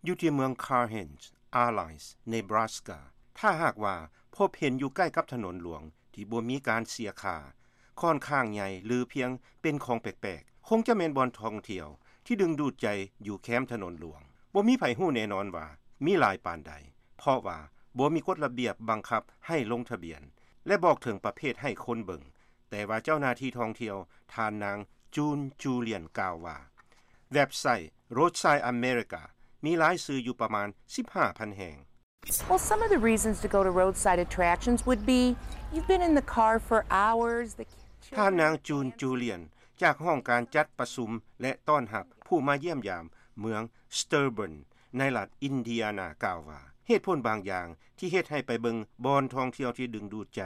ຢູ່ທີ່ເມືອງ Carhens Island Nebraska ຖ້າຫາກວ່າພົບເຫັນຢູ່ໃກ້ກັບຖະໜົນຫຼວງທີ່ບໍ່ມີການເສຍຄ່າ ຂ້ອນຂ້າງໃຫຍ່ ຫຼື ພຽງເປັນຂອງແປກໆ ຄົງຈະແມ່ນບ່ອນທ່ອງທ່ຽວທີ່ດຶງດູດໃຈຢູ່ແຄມຖະໜົນຫຼວງ. ບໍ່ມີໃຜຮູ້ແນ່ນອນວ່າມີຫຼາຍປານໃດ ເພາະວ່າບໍ່ມີກົດລະບຽບບັງຄັບໃຫ້ລົງທະບຽນ ແລະ ບອກເຖິງປະເພດໃຫ້ຄົນເບິ່ງ. ແຕ່ວ່າເຈົ້າໜ້າທີ່ທ່ອງທ່ຽວ ທ່ານນາງ June Julian ກ່າວວ່າ ເວັບໄຊ Roadside America ມີລາຍຊື່ຢູ່ປະມານ ສິບຫ້າພັນ ແຫ່ງ. Well, some of the reasons to go to roadside attractions would be you've been in the car for hours. The ທ່ານນາງ June Julian ຈາກຫ້ອງການຈັດປະຊຸມ ແລະ ຕ້ອນຮັບຜູ້ມາຢ້ຽມຢາມເມືອງ Shelburne ໃນລັດ Indiana ກ່າວວ່າ ເຫດຜົນບາງຢ່າງທີ່ເຮັດໃຫ້ໄປເບິ່ງບ່ອນທ່ອງທ່ຽວທີ່ດຶງດູດໃຈ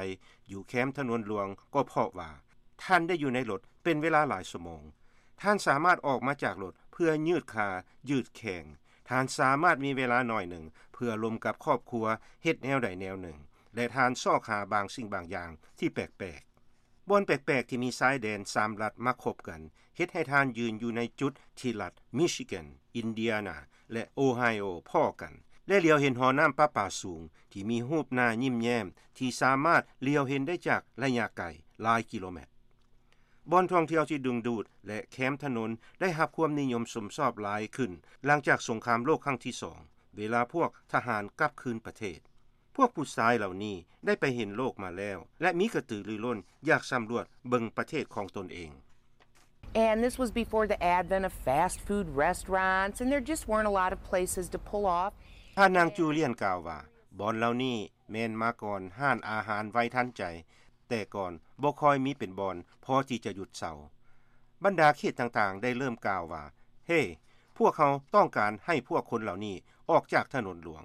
ຢູ່ແຄມຖະໜົນຫຼວງ ກໍເພາະວ່າທ່ານໄດ້ຢູ່ໃນລົດເປັນເວລາຫຼາຍຊົ່ວໂມງ. ທ່ານສາມາດອອກມາຈາກລົດເພື່ອຍືດຂາ ຍືດແຂ້ງ. ທ່ານສາມາດມີເວລາໜ້ອຍໜຶ່ງເພື່ອລົມກັບຄອບຄົວ ເຮັດແນວໃດແນວໜຶ່ງ ແລະ ທ່ານຊອກຫາບາງສິ່ງບາງຢ່າງທີ່ແປກໆ. ບ່ອນແປກໆທີ່ມີຊາຍແດນສາມລັດມາຄົບກັນ ເຮັດໃຫ້ທ່ານຢືນຢູ່ໃນຈຸດທີ່ລັດ Michigan, Indiana ແລະ Ohio ພໍ້ກັນ ແລະ ຫຼຽວເຫັນຫໍນ້ຳປະປາສູງທີ່ມີຮູບໜ້າຍິ້ມແຍ້ມ ທີ່ສາມາດຫຼຽວເຫັນໄດ້ຈາກໄລຍະໄກຫຼາຍກິໂລແມັດ. ບ່ອນທ່ອງທ່ຽວທີ່ດຶງດູດ ແລະ ແຄມຖະໜົນໄດ້ຮັບຄວາມນິຍົມຊົມຊອບຫຼາຍຂຶ້ນ ຫຼັງຈາກສົງຄາມໂລກຄັ້ງທີສອງ ເວລາພວກທະຫານກັບຄືນປະເທດ. ພວກຜູ້ຊາຍເຫຼົ່ານີ້ໄດ້ໄປເຫັນໂລກມາແລ້ວ ແລະ ມີກະຕືລືລົ້ນຢາກສຳຫຼວດເບິ່ງປະເທດຂອງຕົນເອງ. And this was before the advent of fast food restaurants, and there just weren't a lot of places to pull off. ທ່ານນາງ Julian ກ່າວວ່າ ບ່ອນເຫຼົ່ານີ້ແມ່ນມາກ່ອນຮ້ານອາຫານໄວທັນໃຈ, ແຕ່ກ່ອນບໍ່ຄ່ອຍມີເປັນບ່ອນພໍທີ່ຈະຢຸດເຊົາ. ບັນດາເຂດຕ່າງໆໄດ້ເລີ່ມກ່າວວ່າ ເຮ ພວກເຮົາຕ້ອງການໃຫ້ພວກຄົນເຫຼົ່ານີ້ອອກຈາກຖະໜົນຫຼວງ.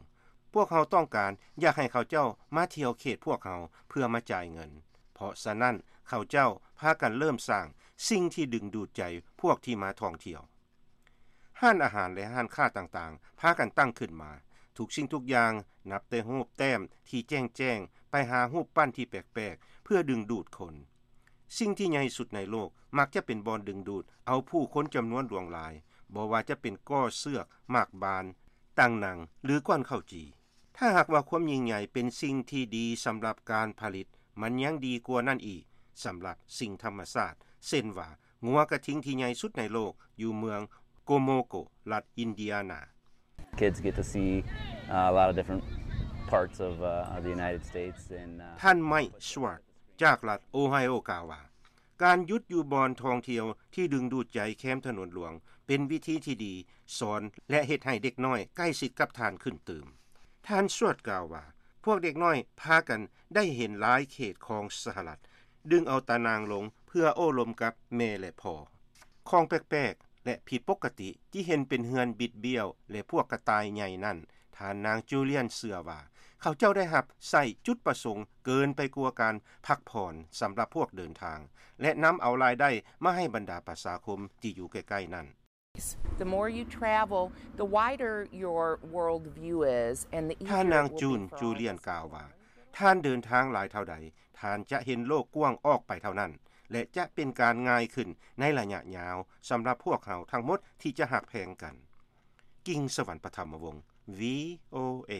ພວກເຮົາຕ້ອງການຢາກໃຫ້ເຂົາເຈົ້າມາທ່ຽວເຂດພວກເຮົາເພື່ອມາຈ່າຍເງິນ. ເພາະສະນັ້ນເຂົາເຈົ້າພາກັນເລີ່ມສ້າງສິ່ງທີ່ດຶງດູດໃຈພວກທີ່ມາທ່ອງທ່ຽວ. ຮ້ານອາຫານ ແລະ ຮ້ານຄ້າຕ່າງໆ ພາກັນຕັ້ງຂຶ້ນມາ. ທຸກສິ່ງທຸກຢ່າງ ນັບແຕ່ຮູບແຕ້ມທີ່ແຈ້ງໆ ໄປຫາຮູບປັ້ນທີ່ແປກໆ ເພື່ອດຶງດູດຄົນ. ສິ່ງທີ່ໃຫຍ່ສຸດໃນໂລກມັກຈະເປັນບ່ອນດຶງດູດເອົາຜູ້ຄົນຈຳນວນຫຼວງຫຼາຍ, ບໍ່ວ່າຈະເປັນກໍເຊືອກ, ໝາກບານ, ຕັ່ງໜັງ ຫຼື ກ້ອນເຂົ້າຈີ່. ຖ້າຫາກວ່າຄວາມຍິ່ງໃຫຍ່ເປັນສິ່ງທີ່ດີສຳລັບການຜະລິດ, ມັນຍັງດີກວ່ານັ້ນອີກສຳລັບສິ່ງທຳມະຊາດ, ເຊັ່ນວ່າ ງົວກະທິງທີ່ໃຫຍ່ສຸດໃນໂລກຢູ່ເມືອງ Kokomo ລັດ Indiana. Kids get to see, uh, a lot of different parts of, uh, of the United States and, uh, ທ່ານ Mike Schwartz ຈາກລັດ Ohio ກ່າວວ່າ ການຢຸດຢູ່ບ່ອນທ່ອງທ່ຽວທີ່ດຶງດູດໃຈແຄມຖະໜົນຫຼວງ ເປັນວິທີທີ່ດີສອນ ແລະ ເຮັດໃຫ້ເດັກນ້ອຍໃກ້ຊິດກັບທ່ານຂຶ້ນຕື່ມ. ທ່ານ Schwartz ກ່າວວ່າ ພວກເດັກນ້ອຍພາກັນໄດ້ເຫັນຫຼາຍເຂດຂອງສະຫະລັດ ດຶງເອົາຕາໜ່າງລົງເພື່ອໂອ້ລົມກັບແມ່ ແລະ ພໍ່. ຂອງແປກໆ ແລະ ຜິດປົກກະຕິທີ່ເຫັນເປັນເຮືອນບິດບ້ຽວ ແລະ ພວກກະຕ່າຍໃຫຍ່ນັ້ນ, ທ່ານນາງ Julian ເຊື່ອວ່າ ເຂົາເຈົ້າໄດ້ຮັບໃຊ້ຈຸດປະສົງເກີນໄປກວ່າການພັກຜ່ອນສຳລັບພວກເດີນທາງ ແລະ ນຳເອົາລາຍໄດ້ມາໃຫ້ບັນດາປະຊາຄົມທີ່ຢູ່ໃກ້ໆນັ້ນ. The more you travel, the wider your world view is, and the easier it will be for all of us to ທ່ານນາງ June Julian ກ່າວວ່າ ທ່ານເດີນທາງຫຼາຍເທົ່າໃດ, ທ່ານຈະເຫັນໂລກກວ້າງອອກໄປເທົ່ານັ້ນ ແລະ ຈະເປັນການງ່າຍຂຶ້ນໃນໄລຍະຍາວສຳລັບພວກເຮົາທັງໝົດທີ່ຈະຮັກແພງກັນ. ກິ່ງສະຫວັນ ປະຖຳມະວົງ VOA.